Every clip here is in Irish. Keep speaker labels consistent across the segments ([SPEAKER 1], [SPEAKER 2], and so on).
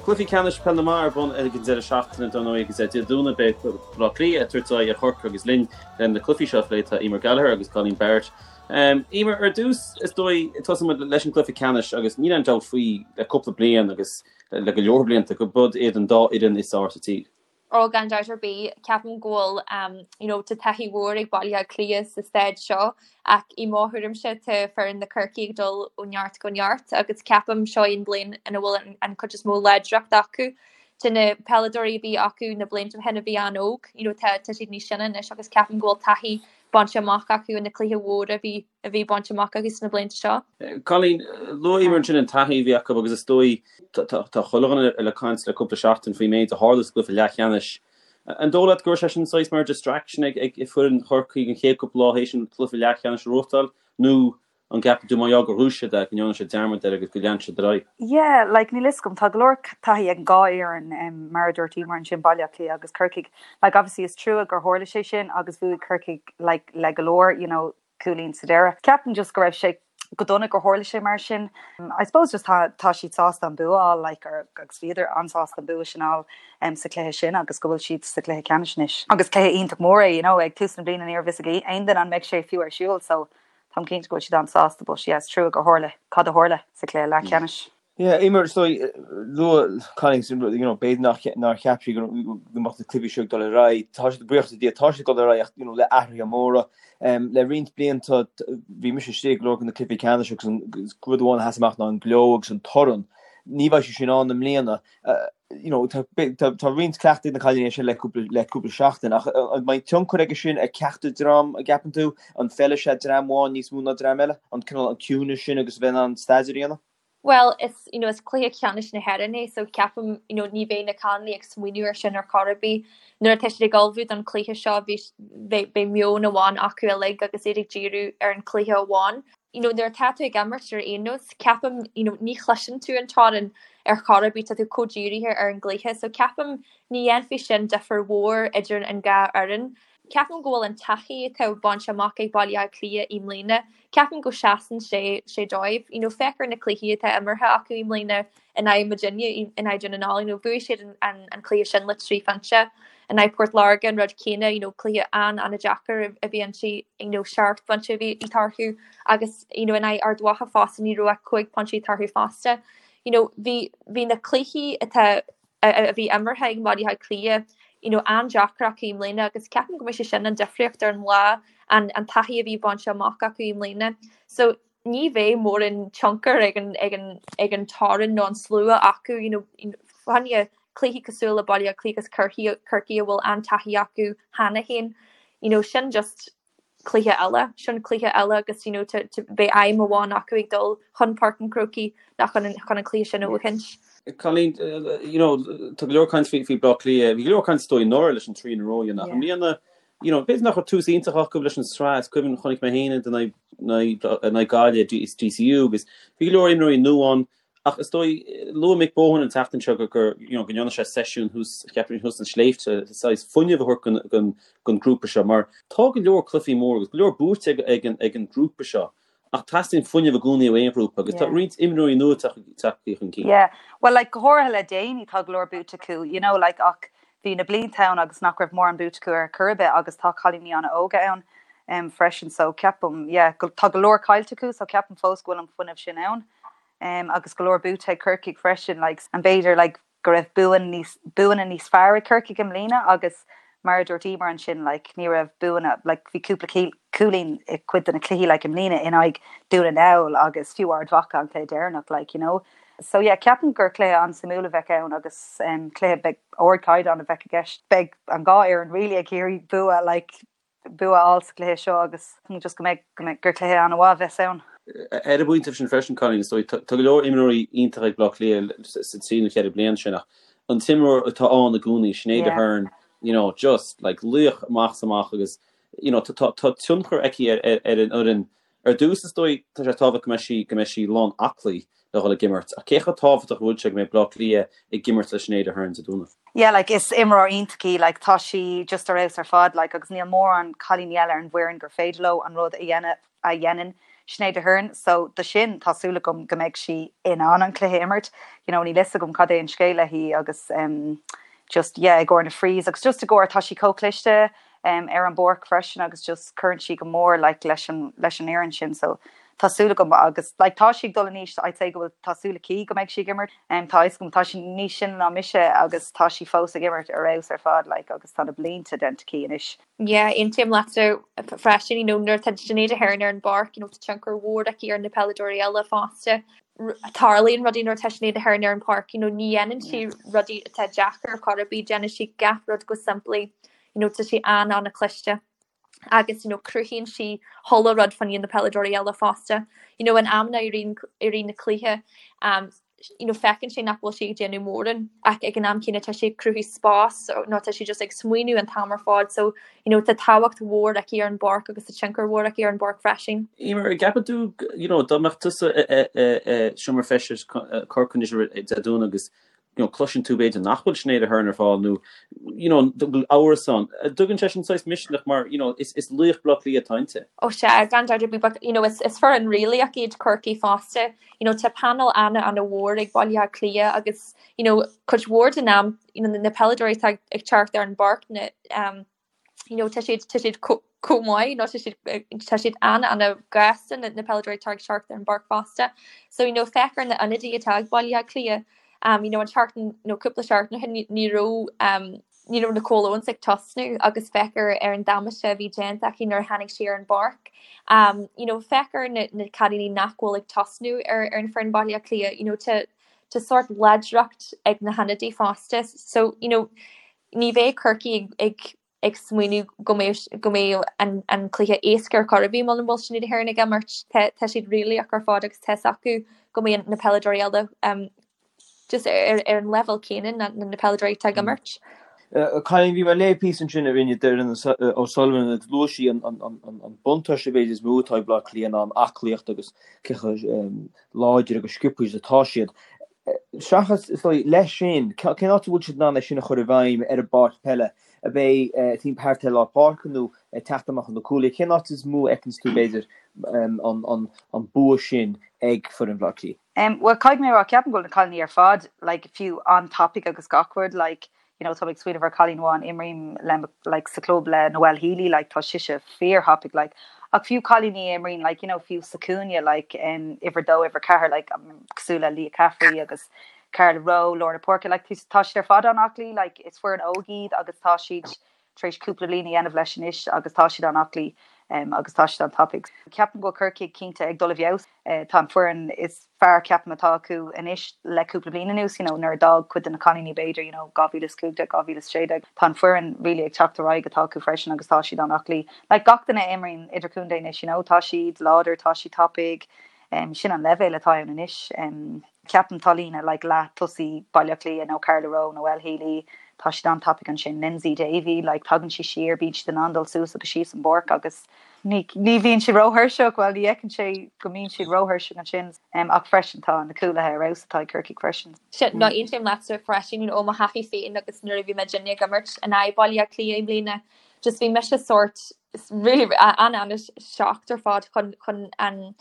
[SPEAKER 1] Cluichí ceannais Peil na mBan ar bun ag an deireadh seachtaine dar ndóigh agus Dé Domhnaigh beidh Baile Átha Cliath ag tabhairt aghaidh ar Chorcaigh agus linn le na cluichí seo a phlé tá Eimear Gallagher agus Colleen Barrett. Eimear, ar dtús is dóigh tosóidh muid leis an gcluiche ceannais agus níl aon dabht faoi le cúpla bliain agus le go leor blianta go bud iad an dá fhoireann is fearr sa tír.
[SPEAKER 2] Ó, gan dabht ar bith, ceapaim go bhfuil you know tá taithí mhór ag Baile Átha Cliath sa staid seo ach i mo thuairimse tá foireann na Corcaí ag dul ó neart go neart agus ceapaim seo í an bliain ina bhfuil an, an cuid is mó láidreacht acu. Tá na peileadóirí a bhí acu na blianta ó shin a bhí an-óg, you know tá, tá siad níos sine anois agus ceapaim go bhfuil taithí bainte amach acu in na cluiche mhóra a bhí a bhí bainte amach acu sna blianta seo.
[SPEAKER 1] Colleen, luaigh Eimear ansin an taithí a bhí acu agus is dóigh, tá chuile dhuine ag caint le cúpla seachtain faoin méid a tharla sa gcluiche leathcheannais. An dóigh leat go raibh sé sin saghas mar distraction ag foireann Chorcaí an chéad cúpla lá théis an cluiche leathcheannais a ghnóthachtáil nó an gceapann tú mar gheall gur ghnóthaigh siad é go ndearna siad dearmad air agus go lean siad ar aghaidh?
[SPEAKER 3] Yeah, like níl fhios agam, tá go leor taithí ag an dhá fhoireann mar a dúirt Eimear ansin, Baile Átha Cliath agus Corcaigh. Like obviously is trua gur tharla sé sin agus bhuaigh Corcaigh like le go leor, you know, cúilín sa deireadh. Ceapaim just go raibh sé go dona gur tharla sé mar sin. I suppose just tá tá siad sásta an bua a fháil like or agus bhíodar an-sásta an bua sin a fháil um, sa chluiche sin agus go bhfuil siad sa chluiche ceannais anois. Agus cluiche iontach mór é, you know, ag tús na bliana ní raibh fhios ag aon duine an mbeidh sé fiú ar siúl so táim cinnte go bhfuil siad an-sásta but yeah, is trua gur tharla cad a tharla sa chluiche leathcheannais.
[SPEAKER 4] Yeah, Eimear, is dóigh, luaigh Colleen, you know, b'fhéidir nach, nár cheap sí go mbeadh na cluichí seo ag dul ar aghaidh. Tá siad, buíochas le Dia, tá siad ag dul ar aghaidh ach, you know, le athruithe móra. Um, le roinnt blianta, bhí mise istigh ag go leor de na cluichí ceannais agus an rud amháin a sheas amach ná an gleo agus an torann. Ní bheidh sé sin ann i mbliana. You know, tá, tá, tá roinnt cleachtaidh ag na cailíní sin le cúpla, le cúpla seachtain ach an mbeidh tionchar aige sin ar ceachtar dream, an gceapann tú? An bhfeilfidh sé dream amháin níos mó ná dream eile? An cineál an ciúnas sin agus a bheith in ann staidéar a dhéanamh?
[SPEAKER 2] Bhuel, is, you know, is cluiche ceannais na hÉireann é so ceapaim, you know, ní bheidh na cailíní ag smaoineamh air sin ar chor ar bith. Nuair atá siad ag ullmhú don chluiche seo bhí, beidh, beidh meon amháin acu uilig agus iad ag díriú ar an chluiche amháin. You know, nuair atá tú ag imirt ar aon nós, ceapaim, you know, ní chloiseann tú an torann ar chor ar bith, tá tú chomh dírithe ar an gcluiche. So ceapaim ní dhéanfaidh sin difear mhór idir an dhá fhoireann. Ceapaim go bhfuil an taithí atá bainte amach ag Baile Átha Cliath i mbliana, ceapaim go seasann sé sé dóibh. You know, féach ar na cluichí atá imeartha acu i mbliana in aghaidh muidinne, in aghaidh Dún na nGall, you know, bhuaigh siad an, an, an cluiche sin le 3 phointe. In aghaidh Port Láirge an rud céanna, you know, cluiche an, an-deacair a bhí inti, you know, 7 bpointe a bhí eatarthu agus, you know, in aghaidh Ard Mhacha fosta ní raibh ach 5 pointe eatarthu fosta. You know, bhí, bhí na cluichí atá a bhí imeartha ag Baile Átha Cliath, you know, an-deacair acu i mbliana agus ceapaim go mbeidh sé sin an difríocht ar an lá, an an taithí a bhí bainte amach acu i mbliana. So ní bheidh mórán tionchar ag an ag an ag an torann nó an slua acu, you know, fá choinne cluichí cosúil le Baile Átha Cliath agus Corcaigh Corcaigh a bhfuil an-taithí acu cheana féin, you know, sin just cluiche eile, sin cluiche eile agus you know beidh aidhm amháin acu ag dul chun Páirc an Chrócaigh ná chun an chun an cluiche sin a bhuachaint.
[SPEAKER 1] Colleen, you know, tá go leor caint faoi faoi Bleá Cliath, bhí go leor caint is dóigh anuraidh leis an 3 in a row a dhéanamh. I mbliana, you know, b'fhéidir nach raibh tús iontach acu leis an sraith, is cuimhin chonaic mé féin iad in aghaidh in aghaidh Gaillimh is DCU agus bhí go leor imreoirí nua ann. Ach is dóigh, luaigh Mick Bohan an tseachtain seo gur, gur, you know, go ndearna sé seisiún thuas, cheapfainn thuas sna sléibhte, saghas fuinneamh a thabhairt don, don, don grúpa seo mar tá go leor cluichí mór agus go leor buaite ag, ag an, ag an grúpa seo ach teastaíonn fuinneamh i gcónaí ó aon ghrúpa agus tá roinnt imreoirí nua tagtha chun cinn.
[SPEAKER 3] Yeah, well like go háirithe le déanaí tá go leor buaite acu, you know, like ach bhí na blianta ann agus nach raibh mórán buaite acu ar chor ar bith agus tá cailíní an-óga ann um, freisin so ceapaim, yeah, go, tá go leor caillte acu so ceapaim fós go bhfuil an fuinneamh sin ann. um agus go leor buaite ag Corcaigh freisin like an b'fhéidir like go raibh buan níos buanna níos fearr ag Corcaigh i mbliana agus mar a dúirt Emer ansin like ní raibh buanna like bhí cúpla cúilín i cuid de na cluichí like i mbliana in aghaidh Dún na nGall agus fiú Ard Mhacha an cluiche deireanach like you know. So yeah ceapaim gur cluiche an-suimiúil a bheidh ann agus um cluiche beidh ardchaighdeán a bheidh i gceist. Beidh an dhá fhoireann really ag iarraidh bua like bua a fháil sa chluiche seo agus just go mbeidh, go mbeidh, gur cluiche an-mhaith a bheas ann.
[SPEAKER 1] Ar an bpointe sin freisin, Colleen, is dóigh, tá go leor imreoirí iontacha ag Bleá Cliath sa trí nó cheithre bliana sin ach an t-imreoir atá ann i gcónaí, Sinéad Aherne, you know, just like laoch amach is amach agus you know, tá, tá tionchar aici ar, ar, ar an fhoireann Ar dtús, is dóigh, tá sé tábhachtach go mbeidh sí, go mbeidh sí lán aclaí le dhul ag imirt, ach cé chomh tábhachtach a bhfuil sé go mbeidh Bleá Cliath ag imirt le Sinéad Aherne Dé Domhnaigh?
[SPEAKER 3] Yeah, like, is imreoir iontach í, like, tá sí just ar fheabhas ar fad, like, agus níl mórán cailíní eile ar an bhfoireann gur féidir leo an rud a dhéanamh a dhéanann. Sinéad Aherne so do sin tá súil agam go mbeidh sí in ann an cluiche a imirt. You know níl fhios agam cad é an scéal léi agus um, just yeah i gcomhair na frees agus just i gcomhair tá sí chomh cliste um, ar an bpáirc freisin agus just cuireann sí go mór like, leis an, leis an fhoireann sin so tá súil agam agus like, tá sí ag dul in aois I'd say go bhfuil tá súil aici go mbeidh sí ag imirt um, tá fhios agam tá sí níos sine ná mise agus tá sí fós ag imirt ar fheabhas ar fad like, agus tá na blianta déanta aici anois.
[SPEAKER 2] Yeah, aontaím leatsa freisin, you know, nuair atá Sinéad Aherne ar an bpáirc, you know, tá tionchar mhór aici ar na peileadóirí eile fosta. Tarlaíonn rudaí nuair atá Sinéad Aherne ar an bpáirc, you know, ní dhéanann sí rudaí atá deacair ar chor ar bith, déanann sí gach rud go simplí, you know, tá sí an-an-chliste agus, you know, cruthaíonn sí chuile rud fá choinne na peileadóirí eile fosta. You know, in amanna i rith i rith na cluiche, um, you know, feiceann sé nach bhfuil sí ag déanamh mórán ach ag an am céanna tá sí ag cruthú spás nó tá sí just ag smaoineamh an t-am ar fad so you know, tá tábhacht mhór aici ar an bpáirc agus tá tionchar mhór aici ar an bpáirc freisin.
[SPEAKER 1] Emer, an gceapann tú, you know, dá mbeadh tusa i seomra feistis Corcaigh anois Dé Domhnaigh agus you know, cloiseann tú b'fhéidir nach bhfuil Sinéad Aherne ar fáil nó you know, go bhfuil amhras ann. Tugann sé sin saghas misneach mar you know, is, is laoch Bleá Cliath atá inti.
[SPEAKER 2] Ó sea, gan dabht ar bith, but you know, is, is foireann rílaoch iad Corcaigh fosta. You know, tá panel ana-ana-mhór ag Baile Átha Cliath agus you know, cuid mhór den am you know, na peileadóirí atá ag teacht ar an bpáirc na, um, you know, tá siad, tá siad chomh maith nó tá siad, tá siad an-an-ghasta na, na peileadóirí atá ag teacht ar an bpáirc fosta. So, you know, féach ar na ionadaithe atá ag Baile Átha Cliath, um, you know, an tseachtain nó cúpla seachtain ó shin ní, ní raibh, um, ní raibh Nicole Owens ag tosnú agus féach ar, ar an damáiste a bhí déanta aici nuair a tháinig sí ar an bpáirc. Um, you know, féach ar na, na cailíní nach bhfuil ag tosnú ar, ar an foireann Baile Átha Cliath, you know, tá, tá sórt láidreacht ag na hionadaithe fosta. So, you know, Ní bheidh Corcaigh ag ag smaoineamh go mbeidh go mbeidh an an cluiche éasca ar chor ar bith muna bhfuil Sinéad Aherne ag imirt. Tá tá siad réalaíoch ar fad agus tá's acu go mbeidh na peileadóirí eile um just ar ar an leibhéal céanna ná na peileadóirí atá ag imirt.
[SPEAKER 4] Cailíní, bhí mé ag léamh píosa ansin a rinne Doireann O'Sullivan ina luaigh sí an an buntáiste b'fhéidir is mó atá ag Bleá Cliath ná an aclaíocht agus cé chomh láidir agus sciobtha is atá siad. Seachas, is dóigh, leis sin, cén áit a bhfuil siad in ann é sin a chur i bhfeidhm ar an bpáirc peile? Ab é timpeall thart ar lár páirce nó ag teacht amach ó na cúlaithe? Cén áit is mó a fheiceanns tú, b'fhéidir, an bua sin ag foireann Bhaile Átha Cliath?
[SPEAKER 3] Bhuel, caithfidh mé a rá, ceapaim go bhfuil na cailíní ar fad, like, fiú an-tapaidh agus gach rud, like, you know, tá mé ag smaoineamh ar cailín amháin, imrím le like sa club le Noelle Healy, like tá sise fíor-thapaidh like ach fiú cailíní a imríonn like you know fiú sa cúinne like um, uimhir 2, uimhir 4 like um, cosúil le Leah Caffrey agus Carla Rowe, lár na páirce like tá siad ar fad an-aclaí like is foireann óg iad agus tá siad tar éis cúpla bliain a dhéanamh leis anois agus tá siad an-aclaí um, agus tá siad an-tapaidh. Ceapaim go bhfuil Corcaigh cinnte ag dul i bhfeabhas. Uh, tá an foireann is fearr ceapaim atá acu anois le cúpla bliain anuas, you know, nuair a d'fhág cuid de na cailíní b'fhéidir, you know, 2015, 2016, tá an foireann really ag teacht ar aghaidh atá acu freisin agus tá siad an-aclaí. Like gach duine a imríonn idirchontae anois, you know, tá siad láidir, tá siad tapaidh, um, sin an leibhéal atá ann anois. Um, ceapaim tá líne like leath tosaí Baile Átha Cliath nó Carla Rowe, Noelle Healy, tá siad an-tapaidh ansin. Lyndsey Davey, like tagann sí siar, bíonn siad in ann dul suas agus síos an bpáirc agus Ní bhíonn siad róthuirseach, bhuel ní fheiceann sé go mbíonn siad róthuirseach ansin, ach freisin tá na cúlaithe ar fheabhas atá ag Corcaigh freisin.
[SPEAKER 2] Sea, nó aontaím leatsa freisin, ó mo thaithí féin agus nuair a bhí muidinne ag imirt in aghaidh Baile Átha Cliath i mbliana, just bhí mise sórt really an-an-shocked ar fad chun chun an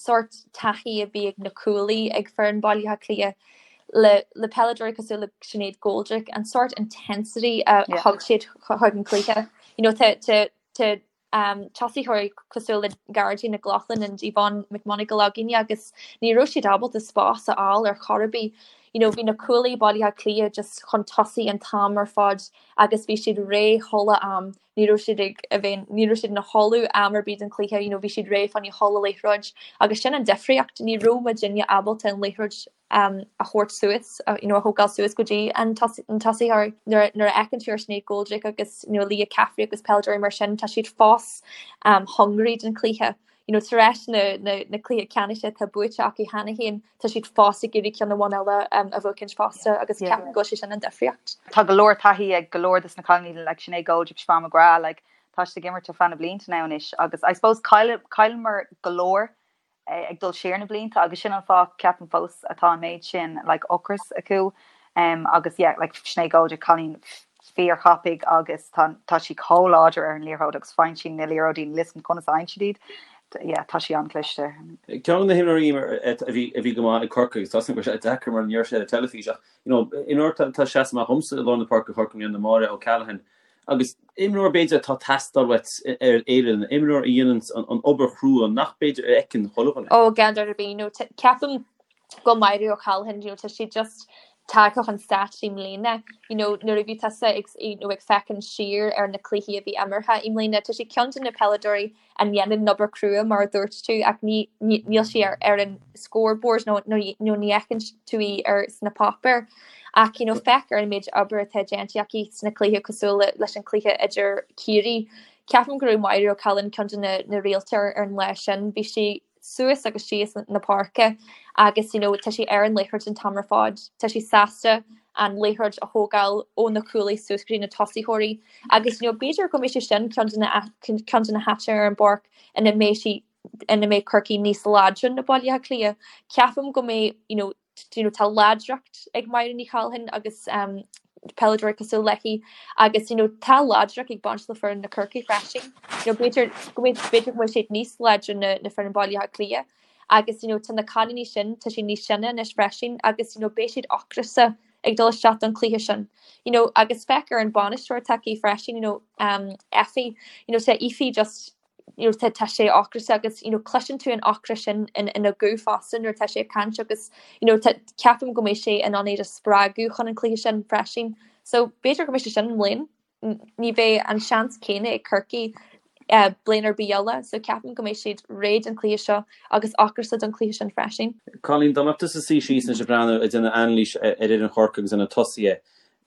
[SPEAKER 2] sórt taithí a bhí ag na cúlaí ag foireann Baile Átha Cliath le le peileadóirí cosúil le Sinéad Goldrick, an sórt intensity a thug siad chuig an cluiche. You know, tá tá tá tosaitheoirí cosúil le Gearóidín McLaughlin and Yvonne McMonagle againne agus ní raibh siad ábalta spás a fháil ar chor ar bith. You know, bhí na cúlaí Baile Átha Cliath just chun tosaigh an t-am ar fad agus bhí siad réidh chuile am. Ní raibh siad ag a bheith, ní raibh siad ina chodladh am ar bith den chluiche, you know, bhí siad réidh fá choinne chuile liathróid agus sin an difríocht, ní raibh muidinne ábalta an liathróid a thabhairt suas, you know, a thógáil suas go dtí an tosaitheoir. Nuair a fheiceann tú ar Sinéad Goldrick agus you know, Leah Caffrey agus peileadóirí mar sin, tá siad fós um, hungry don chluiche. You know, tar éis na, na, na cluiche ceannais atá buaite acu cheana féin, tá siad fós ag iarraidh ceann amháin eile um, a bhuachaint fosta agus yeah. ceapaim go bhfuil sé sin an difríocht.
[SPEAKER 3] Tá go leor taithí ag go leor des na cailíní like Sinéad Goldrick, Siobhán McGrath, like, tá siad ag imirt ar feadh na blianta now anois agus I suppose chailleamar go leor ag dul siar na blianta agus sin an fáth ceapaim fós atá an méid sin like ocras acu um, agus yeah, like Sinéad Goldrick cailín fíorthapaidh agus tá tá sí chomh láidir ar an liathróid agus faigheann sí na liathróidí níl a fhios agam conas a fhaigheann siad iad. yeah, tá sí an-chliste.
[SPEAKER 1] Ceann de na himreoirí a bhí a bhí go maith ag Corcaigh agus tá a fhios agam go raibh sé deacair mar ní raibh sé ar an teilifís ach you know, imreoir atá ag seasamh amach dhomsa i lár na páirce Chorcaigh i mbliana Máire O'Callaghan agus imreoir b'fhéidir atá ag teastáil uait ar fhoireann, imreoir a dhéanann an obair chrua nach b'fhéidir a fheiceann chuile dhuine.
[SPEAKER 2] Ó, gan dabht ar bith, you know, ceapaim go Máire O'Callaghan, you know, tá sí just tagtha chun stáit i mbliana, you know, nuair a bhí tusa ag, you know, ag féachaint siar ar na cluichí a bhí imeartha i mbliana, tá sí ceann de na peileadóirí a ndéanann an obair chrua mar a dúirt tú ach ní, ní, níl sí ar, ar an scoreboard nó, nó, nó ní fheiceann tú í ar sna páipéir. Ach, you know, féach ar an méid obair atá déanta aici sna cluichí cosúil le, leis an cluiche idir Ciarraí. Ceapaim go raibh Máire O'Callaghan ceann de na, na réalta ar, ar an lá sin. Bhí sí suas agus síos na páirce agus you know tá sí ar an liathróid an t-am ar fad. Tá sí sásta an liathróid a thógáil ó na cúlaí suas go dtí na tosaitheoirí agus you know b'fhéidir go mbeidh sé sin ceann de na ceann de na háiteanna ar an bpáirc ina mbeidh sí ina mbeidh Corcaigh níos láidre ná Baile Átha Cliath. Ceapaim go mbeidh you know you know tá láidreacht ag Máire Ní Chathalláin agus um, peileadóirí cosúil léi agus you know, tá láidreacht ag baint le foireann na Corcaigh freisin. You know, b'fhéidir go mbeidh b'fhéidir go bhfuil siad níos láidre ná na foireann Baile Átha Cliath agus you know, tá na cailíní sin tá siad níos sine anois freisin agus you know, beidh siad ocrasta ag dul isteach don chluiche sin. You know, agus féach ar an bainisteoir atá aici freisin, you know, um, Effie, you know, tá Effie just you know, tá, tá sé ocrasta agus you know, cloiseann tú an ocras sin in, ina guth fosta nuair atá sé ag caint agus you know, tá, ceapaim go mbeidh sé in ann iad a spreagadh chun an cluiche sin freisin. So b'fhéidir go mbeidh sé sin i mbliana. Ní bheidh an seans céanna ag Corcaigh uh, bliain ar bith eile, so ceapaim go mbeidh siad réidh don chluiche seo agus ocrasta don chluiche sin freisin.
[SPEAKER 1] Colleen, dá mbeadh tusa suí síos anois ag breathnú ag déanamh anailís ar fhoireann Chorcaí agus ar na tosaithe,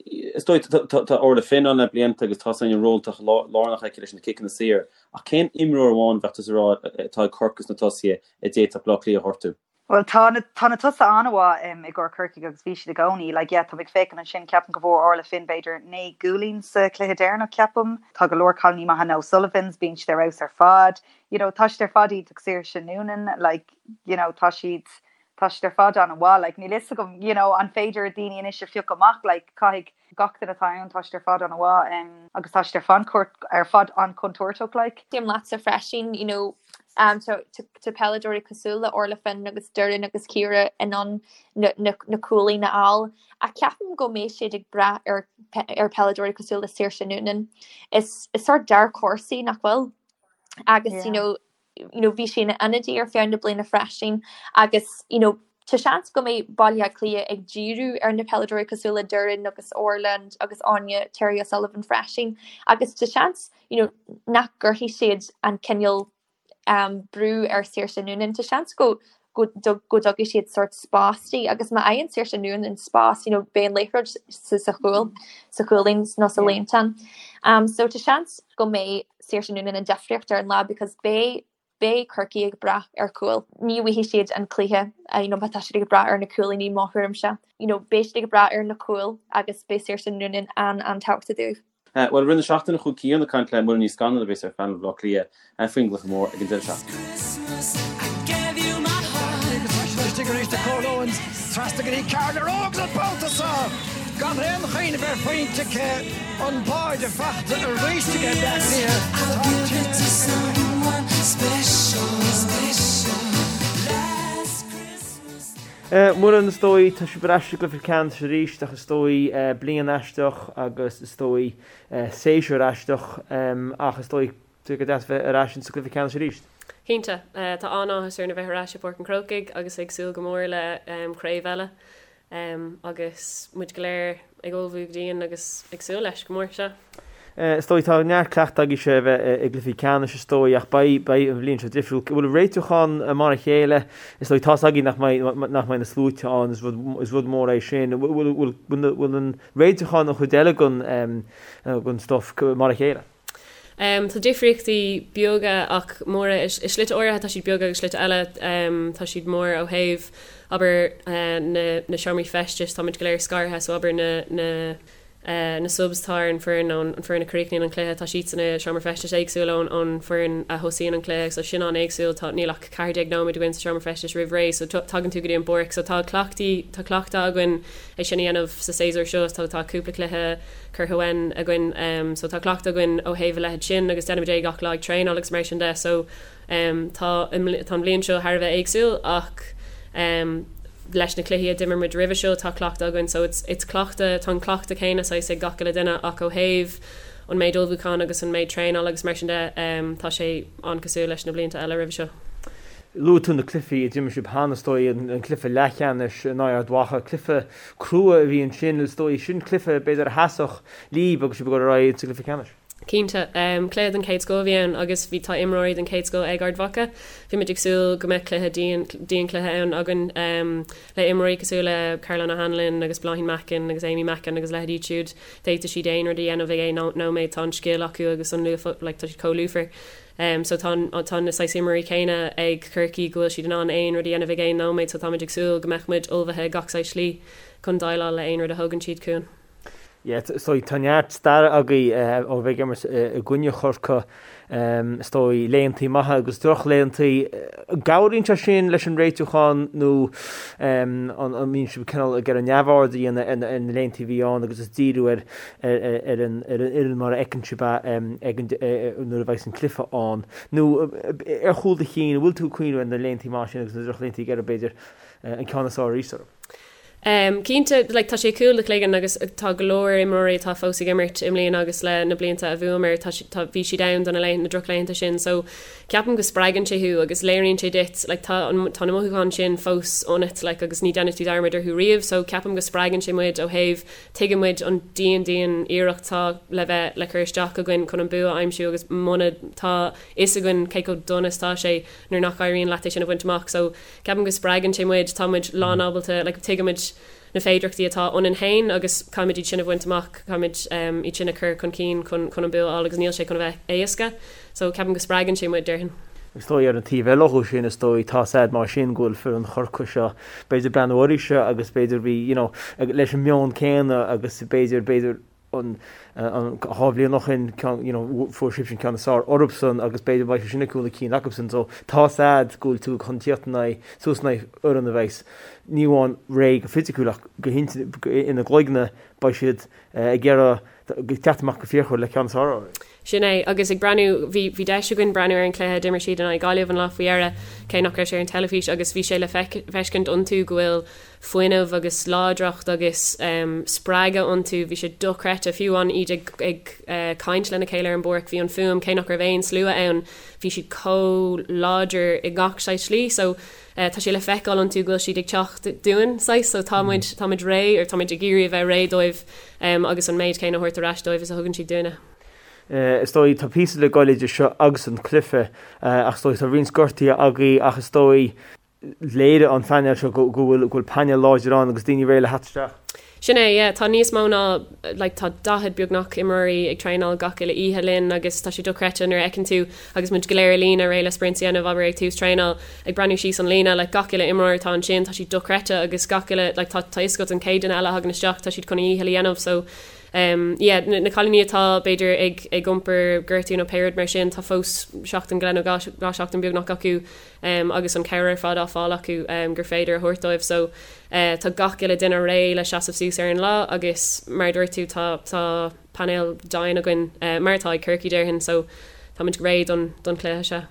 [SPEAKER 1] Is dóigh, tá Orla Finn ann le blianta agus tá an ról lárnach aici leis na ciceanna saor, ach cén imreoir amháin bheadh tusa ag rá atá ag Corcaigh sna tosaithe a d'fhéadfadh Baile Átha Cliath a ghortú?
[SPEAKER 3] Bhuel, tá na, tá na tosaithe an-mhaith i gcomhair Corcaigh agus bhí siad i gcónaí. Like, yeah, tá mé ag féachaint ansin, ceapaim go bhfuair Orla Finn b'fhéidir 9 gcúilín sa chluiche deireanach, ceapaim. Tá go leor cailíní maithe, na O'Sullivans, bíonn siad ar fheabhas ar fad. You know, tá siad ar fad iontach Saoirse Noonan, like, you know, tá siad, tá siad ar fad an-mhaith, like, níl fhios agam, you know, an féidir daoine anois a phiocadh amach, like, caithfidh gach duine atá ann, tá siad ar fad an-mhaith, um, agus tá siad ar fad ar fad an-chontúirteach, like.
[SPEAKER 2] Aontaím leatsa freisin, you know, um, tá, tá, tá peileadóirí cosúil le Orla Finn agus Doireann agus Ciara in ann na, na, na cúilín a fháil, ach ceapaim go mbeidh siad ag brath ar, ar peileadóirí cosúil le Saoirse Noonan. Is, is sort dark horse í, nach bhfuil? Agus, yeah. you know, you know, bhí sí ina ionadaí ar feadh na bliana freisin agus, you know, tá seans go mbeidh Baile Átha Cliath ag díriú ar na peileadóirí cosúil le Doireann agus Orla agus Áine Terry O'Sullivan freisin agus tá seans, you know, nach gcuirfidh siad an cineál um, brú ar Saoirse Noonan. Tá seans go go go dtugfaidh siad sort spás di agus má fhaigheann Saoirse Noonan spás, you know, beidh an liathróid sa sa chúl, sa chúilín nó sa líontán. Um, so tá seans go mbeidh Saoirse Noonan an difríocht ar an lá because beidh beidh Corcaigh ag brath ar chúil. Ní bhuafaidh siad an cluiche you know, má tá siad ag brath ar na cúilíní mo thuairimse. You know, beidh siad ag brath ar na cúil agus beidh Saoirse Noonan an-an-tábhachtach dóibh.
[SPEAKER 1] Bhuel, i rith na seachtaine chuaigh Cian ag caint le Muireann Ní Scanaill a bheas ar phainéal Bhaile Átha Cliath faoin gcluiche mór ag an deireadh seachtaine.
[SPEAKER 5] Istigh arís do Cóil Owens, trasna go dtí Carla Rogue an babhta seo gan aon chuimhneamh ar phointe aici, an báide faighte arís aige Bleá Cliath.
[SPEAKER 4] Tá Muireann, is dóigh, tá sibh ar ais i gcluiche ceannais arís ach is dóigh bliain aisteach agus is dóigh séasúr aisteach ach is dóigh go deas bheith ar ais insa gcluiche ceannais arís.
[SPEAKER 6] Cinnte. Tá an-áthas orainn a bheith ar ais i bPáirc an Chrócaigh agus ag súil go mór le craobh eile agus muid go léir ag ullmhú go dian agus ag súil leis go mór, sea.
[SPEAKER 4] Is dóigh, tá neart cleachtaidh agaibhse a bheith i gcluichí ceannais is dóigh ach beidh, beidh an bhliain seo difriúil. Bhfuil réitiúchán mar a chéile? Is dóigh, tá's againn nach mbeidh, nach mbeidh na sluaite ann, is rud, is rud mór é sin. Bhfuil, bhfuil, bhfuil an réitiúchán an chuid eile den, den stuff mar a chéile?
[SPEAKER 6] Tá difríochtaí beaga ach móra. I slite áirithe tá siad beag agus slite eile tá siad mór ó thaobh, abair, na seomraí feistis, táimid go léir scartha so abair na. Na subs atá ar an foireann nó an foireann a chríochnaíonn an cluiche, tá siadsan i seomra feistis éagsúil ón ón foireann a thosaíonn an cluiche so sin an-éagsúil. Tá, níl ach 14 nóiméad againn sa seomra feistis roimh ré so tagann tú go dtí an bpáirc so tá cleachtaí, tá cleachtadh againn é sin a dhéanamh sa séasúr seo so tá cúpla cluiche curtha uainn againn so tá cleachtadh againn ó thaobh a leithéid sin agus déanaimid é gach lá ag traenáil agus mar sin de so Tá an bhliain seo thar a bheith éagsúil ach leis na cluichí a d'imir muid roimhe seo tá cleachtadh againn so it's it's cleachtadh, tá an cleachtadh céanna saghas ag gach uile duine ach ó thaobh an méid ullmhúcháin agus an méid traenála agus mar sin de tá sé an-cosúil leis na blianta eile roimhe seo.
[SPEAKER 4] Luaigh tú na cluichí a d'imir sibh cheana, is dóigh, an cluiche leathcheannais in aghaidh Ard Mhacha, cluiche crua a bhí ansin, is dóigh, sin cluiche b'fhéidir a sheasfadh libh agus sibh ag dul ar aghaidh sa gcluiche ceannais.
[SPEAKER 6] Cinnte. Cluiche den chéad scoth a bhí ann agus bhí tá imreoirí den chéad scoth ag Ard Mhacha. Bhí muid ag súil go mbeadh cluiche dian, dian-chluiche ann againn le imreoirí cosúil le Caroline O'Hanlon agus Bláithín Mackin agus Amy Mackin agus leithéidí iad siúd. D'fhéadfadh siad aon rud a dhéanamh ag aon nóiméad. Tá an scil acu agus an luas, like tá siad chomh lúfar. So tá an, tá na saghas imreoirí céanna ag Corcaigh go bhfuil siad in ann aon rud a dhéanamh ag aon nóiméad so táimid ag súil go mbeadh muid ullmhaithe gach saghas slí chun déileáil le aon rud a thógann siad chugainn.
[SPEAKER 4] Yeah, so tá neart staire agaibh ó bheith ag imirt i gcoinne Chorcaí, is dóigh, laethantaí maithe agus drochlaethantaí. An gcabhraíonn sé sin leis an réitiúchán nó an mbíonn sibh cineál ag iarraidh neamhaird a dhéanamh ar na laethantaí a bhí ann agus is díriú ar ar an fhoireann mar a fheiceann sibh é ag an nuair a bheidh an cluiche ann? Nó ar chúl do chinn, an bhfuil tú ag cuimhneamh ar na laethantaí maithe sin agus na drochlaethantaí ag iarraidh b'fhéidir an ceann is fearr arís orthu?
[SPEAKER 6] Cinnte, like, tá sé cúl do chloigeann agus tá go leor imreoirí atá fós ag imirt i mbliana agus le na blianta a bhuamar, tá, tá, bhí siad ann do na laethanta, na drochlaethanta sin so ceapaim go spreagann sé thú agus léiríonn sé duit, like, tá an, tá na mothúcháin sin fós ionat, like, agus ní déanfaidh tú dearmad orthu riamh so ceapaim go spreagann sé muid ó thaobh, tuigeann muid an dian, dian iarracht atá le bheith, le cur isteach againn chun an bua a aimsiú agus muna, tá fhios againn cé chomh dona is atá sé nuair nach éiríonn leat é sin a bhaint amach so Ceapaim go spreagann sé muid, tá muid lán ábalta, like tuigimid na féidearthachtaí atá ionainn féin agus caithfimid iad sin a bhaint amach, caithfimid iad sin a chur chun cinn chun chun an bua a fháil agus níl sé chun a bheith éasca. So ceapaim go spreagann sé muid, déarfainn.
[SPEAKER 4] Is dóigh ar an taobh eile dhó sin, is dóigh, tá's a'd mar sin go bhfuil foireann Chorcaí seo, b'fhéidir breathnú oraibhse agus b'fhéidir bhí, you know, leis an meon céanna agus b'fhéidir, b'fhéidir, an 2 bhliain ó shin, you know, fuair sibhse an ceann is fearr orthusan agus b'fhéidir beidh sé sin ag cúl na cinn acusan. So tá's a'd go bhfuil tú chun tíocht in aghaidh, suas in aghaidh fhoireann a bheas ní amháin réidh go fisiciúil ach go ina gcloigne beidh siad ag iarraidh teacht amach go fíochmhar le ceann is fearr
[SPEAKER 6] orthu. Sin é, agus ag breathnú, bhí, bhí deis againn breathnú ar an chluiche a d'imir siad in aghaidh Gaillimh an lá faoi dheireadh, cé nach raibh sé ar an teilifís, agus bhí sé le feiscint iontu go bhfuil fuinneamh agus láidreacht agus spreagadh iontu. Bhí sé dochreidte, fiú amháin iad ag caint lena chéile ar an bpáirc, bhí an fuaim, cé nach raibh aon slua ann, bhí siad chomh láidir i ngach saghas slí. So tá sé le feiceáil iontu go bhfuil siad ag teacht dúinn, saghas, so tá muid, tá muid réidh, or tá muid ag iarraidh a bheith réidh dóibh agus an méid céanna a thabhairt ar ais dóibh is a thugann siad dúinne.
[SPEAKER 4] Is dóigh, tá píosa le goil idir seo agus an cluiche ach is dóigh tá roinnt gortuithe agaibh ach is dóigh, léirigh an phainéal seo go bhfuil go bhfuil painéal láidir ann agus daoine réidh le theacht isteach.
[SPEAKER 6] Sin é, yeah. Tá níos mó ná, like, tá 40 beagnach imreoirí ag traenáil gach uile oíche linn agus tá sé dochreidte nuair a fheiceann tú agus muid go léir i líne réidh le sprints a dhéanamh, abair ag tús traenáil, ag breathnú síos an líne, like, gach uile imreoir atá ansin, tá siad dochreidte agus gach uile, like, tá tá fhios agat an chéad duine eile a thagann isteach, tá siad chun a dhícheall a dhéanamh so, um, yeah, na, na cailíní atá b'fhéidir ag ag iompar gortú nó pé rud mar sin, tá fós seachtain go leith nó 2 seachtain beagnach acu agus an cabhair ar fad á fáil acu gur féidir a thabhairt dóibh so tá gach uile duine réidh le seasamh suas ar an lá agus mar a dúirt tú tá tá painéal dian againn mar atá ag Corcaigh déarfainn so táimid réidh don don chluiche seo.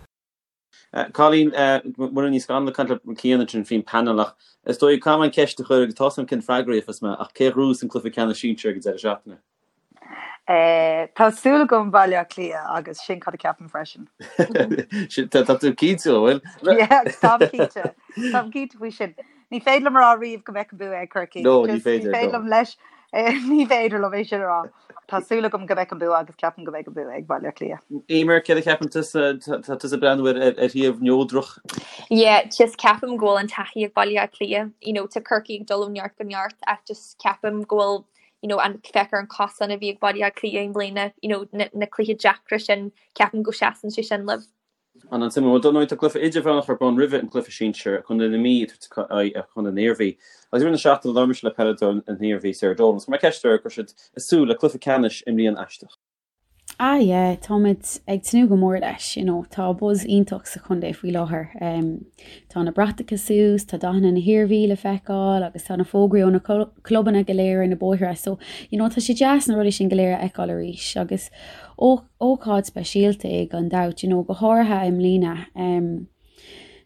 [SPEAKER 1] Colleen, Muireann Ní Scanaill ag caint le Cian ansin faoin panel ach is dóigh caithfidh mé an ceist a chur agus tá a fhios agam cén freagra a gheobhas mé ach cé a ghnóthós an cluiche ceannais sinsir ag an deireadh seachtaine?
[SPEAKER 3] Tá súil agam Baile Átha Cliath agus sin cad a ceapaim freisin.
[SPEAKER 1] Tá tú cinnte, an bhfuil?
[SPEAKER 3] Yeah, táim cinnte. Táim cinnte faoi sin. Ní féidir liom a rá riamh go mbeadh an bua ag Corcaigh.
[SPEAKER 1] No, ní féidir.
[SPEAKER 3] Ní féidir liom leis, ní féidir liom é sin a rá. Tá súil agam go mbeadh an bua agus ceapaim go mbeidh an bua ag Baile Átha Cliath.
[SPEAKER 1] Eimear, céard a cheapann tusa? Tá tusa ag breathnú ar thaobh neodrach.
[SPEAKER 2] Yeah, just ceapaim go bhfuil an taithí ag Baile Átha Cliath. You know, tá Corcaigh ag dul ó neart go neart ach just ceapaim go bhfuil you know, an féach ar an cosán a bhí ag Baile Átha Cliath i mbliana, you know, na, na cluichí deacra sin, ceapaim go seasann sé sin leo.
[SPEAKER 1] An-suimiúil. Bhuel, dar ndóigh, tá cluiche idirmheánach ar bun roimhe an cluiche sinsir, Contae na Mí ag tabhairt aghaidh ar Chontae na hIarmhí. Agus i rith na seachtaine labhair mise le peileadóir na hIarmhí, Sarah Dolan, agus chuir mé ceist uirthi an raibh siad ag súil le cluiche ceannais i mbliain aisteach.
[SPEAKER 7] Ah yeah, táimid ag tnúth go mór leis, you know, tá buzz iontach sa chontae faoi láthair. Tá na bratacha suas, tá dathanna na hIarmhí le feiceáil agus tá na fógraí ó na clubanna go léir ar na bóithre so, you know, tá sé deas na rudaí sin go léir a fheiceáil arís agus ócáid speisialta é gan dabht, you know, go háirithe i mbliana.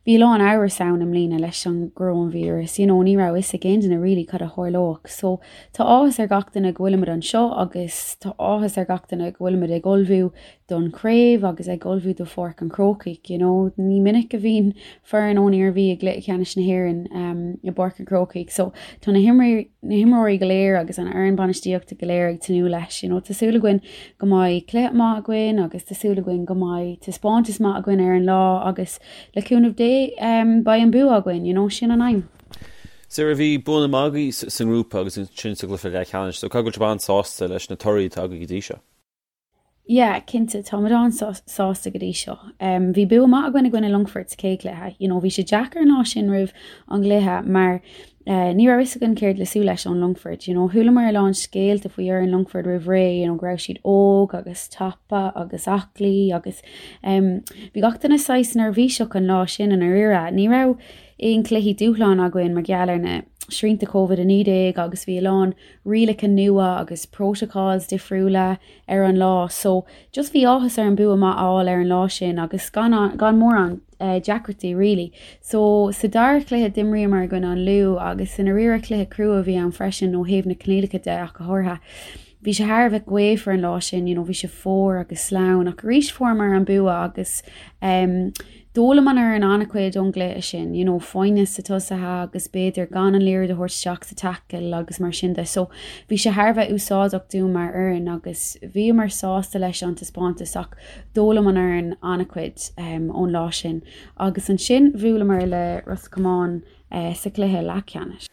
[SPEAKER 7] Bhí a lán amhras ann i mbliana leis an gcoróinvíreas, you know, ní raibh fhios ag aon duine really cad a tharlódh. So tá áthas ar gach duine go bhfuilimid anseo agus tá áthas ar gach duine go bhfuilimid ag ullmhú don chraobh agus ag ullmhú do Pháirc an Chrócaigh, you know. Ní minic a bhíonn foireann ón Iarmhí i gcluiche ceannais na hÉireann um, i bPáirc an Chrócaigh. So tá na na himreoirí go léir agus an fhoireann bainistíochta go léir ag tnúth leis. You know, tá súil againn go mbeidh cluiche maith againn agus tá súil againn go mbeidh taispeántas maith againn ar an lá agus le cúnamh Dé um, beidh an bua againn, you know, sin an aidhm.
[SPEAKER 1] Sarah, bhí buanna maith agaibh sa ngrúpa agus ansin sa gcluiche leathcheannais, so caithfidh go bhfuil sibh an-sásta leis na torthaí atá agaibh go dtí seo.
[SPEAKER 7] Yeah, cinnte, táimid an-sásta go dtí seo. Bhí bua maith againn i gcoinne Longfoirt sa chéad chluiche. You know, bhí sé deacair an lá sin roimh an gcluiche mar ní raibh fhios againn céard le súil leis ón Longfort. You know, chualamar a lán scéalta faoi fhoireann Longfoirt roimh ré, you know, go raibh siad óg agus tapa agus aclaí agus bhí gach duine saghas neirbhíseach an lá sin i ndáiríre. Ní raibh aon chluichí dúshláin againn mar gheall ar na srianta Covid-19 agus bhí a lán rialacha nua agus protocols difriúla ar an lá so just bhí áthas orainn bua maith a fháil ar an lá sin agus gan gan mórán deacrachtaí really. So sa dara cluiche d'imríomar i gcoinne an Lú agus i ndáiríre cluiche crua a bhí ann freisin ó thaobh na coinníollacha de ach go háirithe. Bhí sé thar a bheith gaofar an lá sin, you know, bhí sé fuar agus sleamhain ach arís fuaireamar an bua agus um, D'fhoghlaim an fhoireann an-chuid ón gcluiche sin, you know, foighne sna tosaithe agus b'fhéidir gan an liathróid a thabhairt isteach sa tackle agus mar sin de. So bhí sé thar a bheith úsáideach dúinn mar fhoireann agus bhíomar sásta leis an taispeántas ach d'fhoghlaim an fhoireann an-chuid um, ón lá sin. Agus ansin bhuaileamar le Ros Comáin uh, sa chluiche leathcheannais.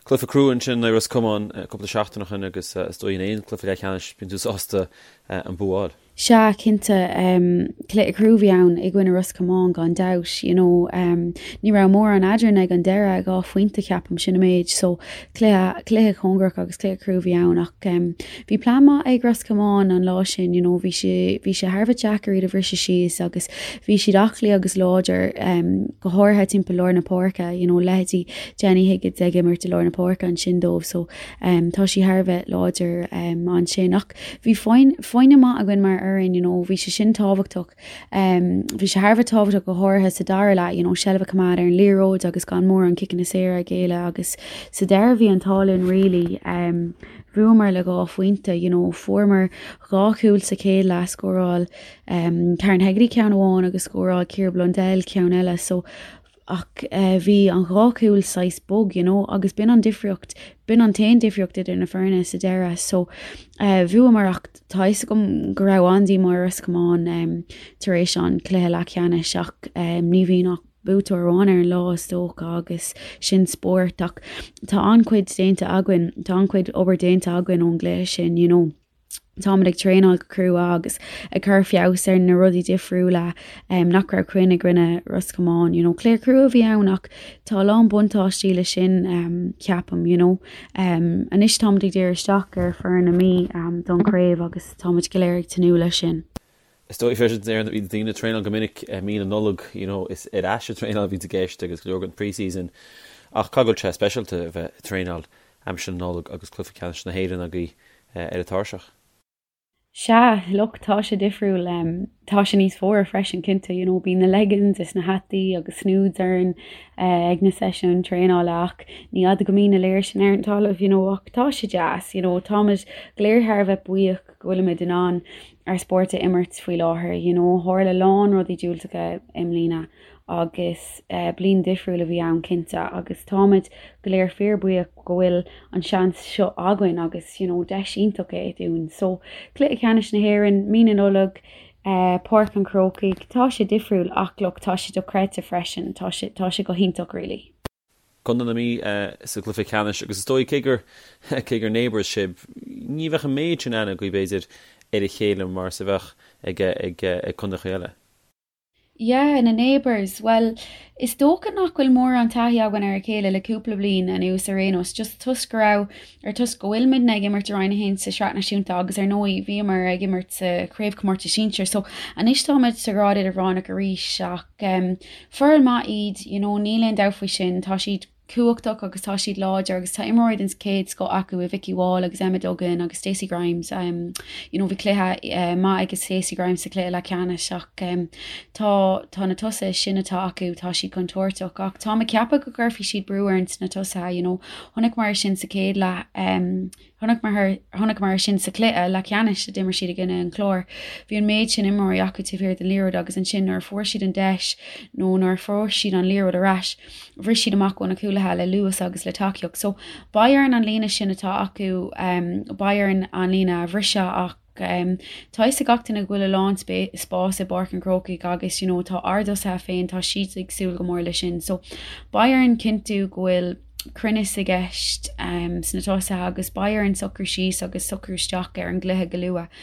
[SPEAKER 1] Cluiche crua ansin le Ros Comáin cúpla seachtain ó shin agus is dóigh in aon cluiche leathcheannais bíonn tú sásta an bua a fháil.
[SPEAKER 7] Sea, cinnte. Cluiche crua a bhí ann i gcoinne Ros Comáin gan dabht. You know, ní raibh mórán eadrainn ag an deireadh, 2 phointe ceapaim, sin an méid. So, cluiche, cluiche cóngarach agus cluiche crua a bhí ann ach bhí plean maith ag Ros Comáin an lá sin, you know, bhí sé, bhí sé thar a bheith deacair iad a bhriseadh síos agus bhí siad aclaí agus láidir, go háirithe timpeall lár na páirce, you know, leithéidí Jenny Higgins ag imirt i lár na páirce ansin dóibh so tá sí thar a bheith láidir ansin ach Bhí foighne maith againn mar fhoireann, you know, bhí sé sin tábhachtach. Bhí sé thar a bheith tábhachtach go háirithe sa dara leath, you know, seilbh a choimeád ar an liathróid agus gan mórán ciceanna saora a ghéilleadh agus sa deireadh bhí an t-ádh linn really. Bhuamar le 2 phointe, you know, fuaireamar 2 chúl sa chéad leath, scóráil Karen Hegarty ceann amháin agus scóráil Ciara Blundell ceann eile so ach bhí an dhá chúl saghas bog, you know, agus b'in an difríocht, b'in an t-aon difríocht idir na foirne sa deireadh. So bhuamar ach tá fhios agam go raibh an-díomá ar Ros Comáin tar éis an cluiche leathcheannais ach ní bhíonn ach buaiteoir amháin ar an lá is dócha agus sin spórt ach tá an-chuid déanta againn, tá an-chuid obair déanta againn ón gcluiche sin, you know. Táimid ag traenáil go crua agus ag cur feabhas ar na rudaí difriúla nach raibh cruinn i gcoinne Ros Comáin. You know, cluiche crua a bhí ann ach tá a lán buntáistí le sin ceapaim, you know. Anois táimid ag díriú isteach ar foireann na Mí don chraobh agus táimid go léir ag tnúth leis sin.
[SPEAKER 1] Is dóigh freisin bíonn daoine ag traenáil go minic i mí na Nollag, you know, is ar ais ag traenáil a bhíonns i gceist agus go leor den pre-season ach caithfidh go bhfuil sé speisialta a bheith ag traenáil aimsir na Nollag agus cluiche ceannais na hÉireann agaibh ar an tairseach.
[SPEAKER 7] Sea, look, tá sé difriúil. Tá sé níos fuaire freisin, cinnte, you know, bíonn na leggings is na hataí agus snoods orainn ag na seisiúin traenála ach ní fhada go mbíonn na léir sin ar an talamh, you know, ach tá sé deas, you know, táimid go léir thar a bheith buíoch go bhfuilimid in ann ár spórt a imirt faoi láthair, you know, tharla a lán rudaí diúltacha i mbliana agus bliain difriúil a bhí ann cinnte agus táimid go léir fíor buíoch go bhfuil an seans seo againn agus you know deis iontach é dúinn. So cluiche ceannais na hÉireann, mí na Nollag, Páirc an Chrócaigh, tá sé difriúil ach look tá sé dochreidte freisin, tá sé tá sé go hiontach really.
[SPEAKER 1] Contae na Mí sa gcluiche ceannais agus is dóigh cé gur cé gur neighbours sibh, ní bheadh an méid sin aithne agaibh b'fhéidir ar a chéile mar is a bheadh ag ag ag contaetha eile.
[SPEAKER 7] Yeah, na neighbours, bhuel, is dócha nach bhfuil mórán taithí againn ar a chéile le cúpla bliain anuas ar aon nós, just toisc go raibh, or toisc go bhfuilimidne ag imirt i Roinn 1 sa Sraith Náisiúnta agus ar ndóigh bhíomar ag imirt sa Chraobhchomórtas Sinsir so anois táimid sa ghrád idirmheánach arís ach em foireann maith iad, you know, níl aon dabht faoi sin, tá siad cumhachtach agus tá siad láidir agus tá imreoirí den chéad scoth acu i Vikki Wall agus Emma Duggan agus Stacey Grimes. You know bhí cluiche maith ag Stacey Grimes sa chluiche leathcheannais ach tá tá na tosaithe sin atá acu, tá siad contúirteach ach táim ag ceapadh go gcuirfidh siad brú orainn sna tosaithe, you know chonaiceamar sin sa chéad leath. Chonaiceamar sin sa chluiche leathcheannais a d'imir siad i gcoinne an Chláir. Bhí an méid sin imreoirí acu taobh thiar den liathróid agus ansin nuair a fuair siad an deis nó nuair a fuair siad an liathróid ar ais, bhris siad amach ó na cúlaithe le luas agus le tacaíocht. So, beidh orainn an líne sin atá acu, beidh orainn an líne a bhriseadh ach tá fhios ag gach duine go bhfuil a lán spáis i bPáirc an Chrócaigh agus you know tá ár dtosaithe féin, tá siad ag súil go mór leis sin. So, beidh orainn cinntiú go bhfuil. cruinneas i gceist sna tosaithe agus beidh orainn socrú síos agus socrú isteach ar an gcluiche go luath.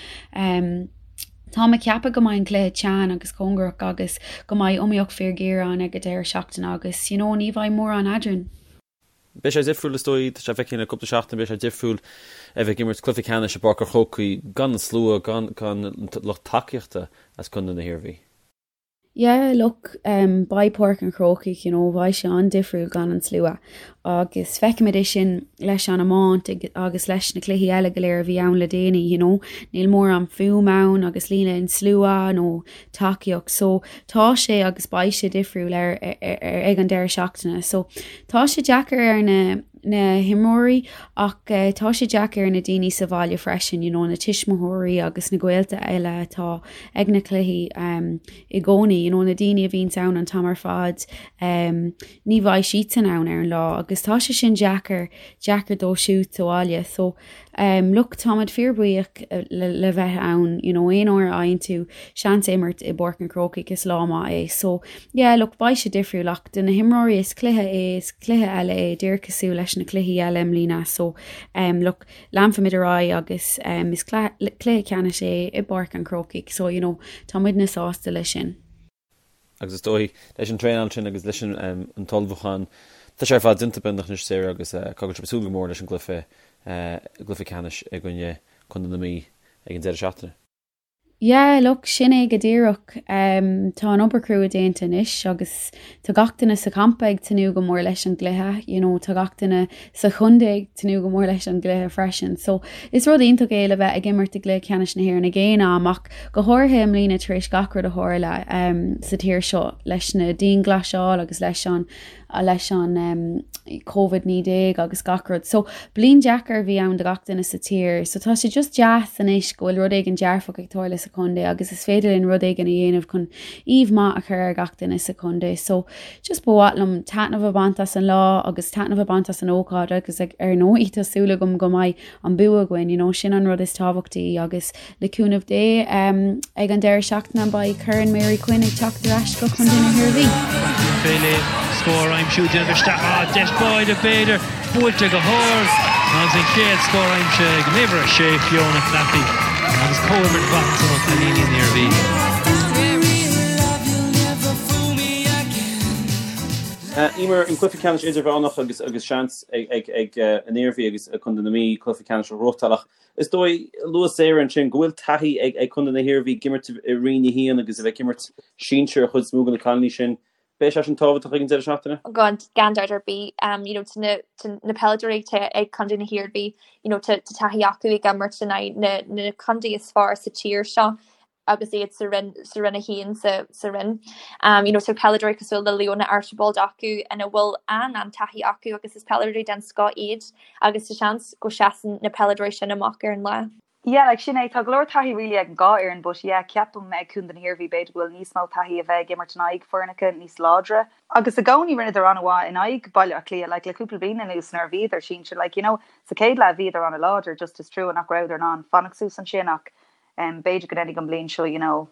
[SPEAKER 7] Táim ag ceapadh go mbeidh an cluiche teann agus cóngarach agus go mbeidh iomaíocht fíorghéar ann ag an deireadh seachtaine agus you know ní bheidh mórán eadrainn.
[SPEAKER 1] Beidh sé difriúil is dóigh, tá sé feicthe le cúpla seachtain, beidh sé difriúil a bheith ag imirt cluiche ceannais i bPáirc an Chrócaigh gan an slua, gan gan lucht tacaíochta as Contae na hIarmhí.
[SPEAKER 7] Yeah look um beidh Páirc an Chrócaigh you know beidh sé an-difriúil gan an slua agus feicimid é sin leis an iomáint agus leis na cluichí eile go léir a bhí ann le déanaí you know níl mórán fuaim ann agus níl aon slua nó tacaíocht so tá sé agus beidh sé difriúil ar, ar, ar, ag an deireadh seachtaine so tá sé deacair ar na na himreoirí ach tá sé deacair ar na daoine sa bhaile freisin, you know na tuismitheoirí agus na gaolta eile atá ag na cluichí um, i gcónaí, you know na daoine a bhíonns ann an t-am ar fad um, ní bheidh siadsan ann ar an lá agus tá sé sin deacair deacair dóibh siúd sa bhaile so um, look táimid fíorbhuíoch le, le bheith ann you know aon uair a fhaigheann tú seans imirt i bPáirc an Chrócaigh is lá maith é so yeah look beidh sé difriúil ach do na himreoirí is cluiche é is cluiche eile é díreach cosúil leis na cluichí eile i mbliana so um, look leanfaimid ar aghaidh agus um, is cluiche ceannais é i bPáirc an Chrócaigh so you know tá muidne sásta leis sin.
[SPEAKER 1] Agus is dóigh, leis an traenáil sin agus leis an t-ullmhúchán, tá sé ar fad déanta beagnach anois Sarah agus caithfidh sibh súil go mór leis an gcluiche, gcluiche ceannais i gcoinne Contae na Mí ag an deireadh seachtaine.
[SPEAKER 7] Yeah, look, sin é go díreach. Tá an obair chrua déanta anois agus tá gach duine sa champa ag tnúth go mór leis an gcluiche, you know, tá gach duine sa chontae ag tnúth go mór leis an gcluiche freisin. So, is rud iontach é le bheith ag imirt i gcluiche ceannais na hÉireann ag aon am ach go háirithe i mbliana tar éis gach rud a tharla sa tír seo leis na dianghlasáil agus leis an leis an Covid-19 agus gach rud. So bliain deacair a bhí ann do gach duine sa tír. So tá sé just deas anois go bhfuil rud éigin dearfach ag tarlú sa chontae agus is féidir linn rud éigin a dhéanamh chun aoibh maith a chur ar gach duine sa chontae. So just ba mhaith liom taitneamh a bhaint as an lá agus taitneamh a bhaint as an ócáid agus ar ndóigh tá súil agam go mbeidh an bua againn, you know, sin an rud is tábhachtaí agus le cúnamh Dé ag an deireadh seachtaine beidh Corn Mary Quinn ag teacht ar ais go Contae na hIarmhí.
[SPEAKER 5] Féile scór aimsiú déanamh isteach ah deis báide b'fhéidir buailte go hard agus an chéad scór aimsithe ag an uimhir 6 Fiona Claffey agus comhimirt mhaith ansan ó chailíní na hIarmhí.
[SPEAKER 1] Eimear, an cluiche ceannais idirmheánach agus agus seans ag ag an Iarmhí agus Contae na Mí cluiche ceannais a ghnóthachtáil ach is dóigh luaigh Sarah ansin go bhfuil taithí ag ag Contae na hIarmhí ag imirt i Roinn 1 agus a bheith ag imirt sinsir an chuid is mó de na cailíní sin. Beidh sé sin tábhachtach ag an deireadh seachtaine?
[SPEAKER 2] Gan gan dabht ar bith you know tá na tá na peileadóirí atá ag Contae na hIarmhí you know tá tá taithí acu ag imirt in aghaidh na na contae is fearr sa tír seo agus iad sa roinn sa roinn 1 sa sa roinn. Um you know tá peileadóirí cosúil le Leona Archibald acu ina bhfuil an an-taithí acu agus is peileadóirí den scoth iad agus tá seans go seasann na peileadóirí sin amach ar an lá.
[SPEAKER 3] Yeah like sin é, tá go leor taithí really ag an dhá fhoireann but yeah ceapaim ag Contae na hIarmhí b'fhéidir go bhfuil níos mó taithí a bheith ag imirt in aghaidh foirneacha níos láidre. Agus i gcónaí rinneadar an-mhaith in aghaidh Baile Átha Cliath like le cúpla bliain anuas nuair a bhíodar sinsir like you know sa chéad leath bhíodar an-láidir just is trua nach rabhadar in ann fanacht suas ansin ach B'fhéidir go ndéanfaidh an bhliain seo you know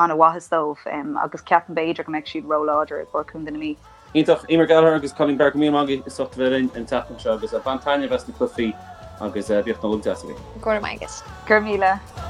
[SPEAKER 3] an-mhaitheas dóibh agus ceapaim b'fhéidir go mbeidh siad ró-láidir i gcomhair Contae na Mí.
[SPEAKER 1] Iontach. Eimear Gallagher agus Colleen Barrett, go raibh míle maith agaibh as ucht a bheith linn an tseachtain seo agus bain taitneamh as na cluichí agus bíodh Nollaig deas agaibh.
[SPEAKER 2] Go raibh maith agat.
[SPEAKER 3] Go raibh míle.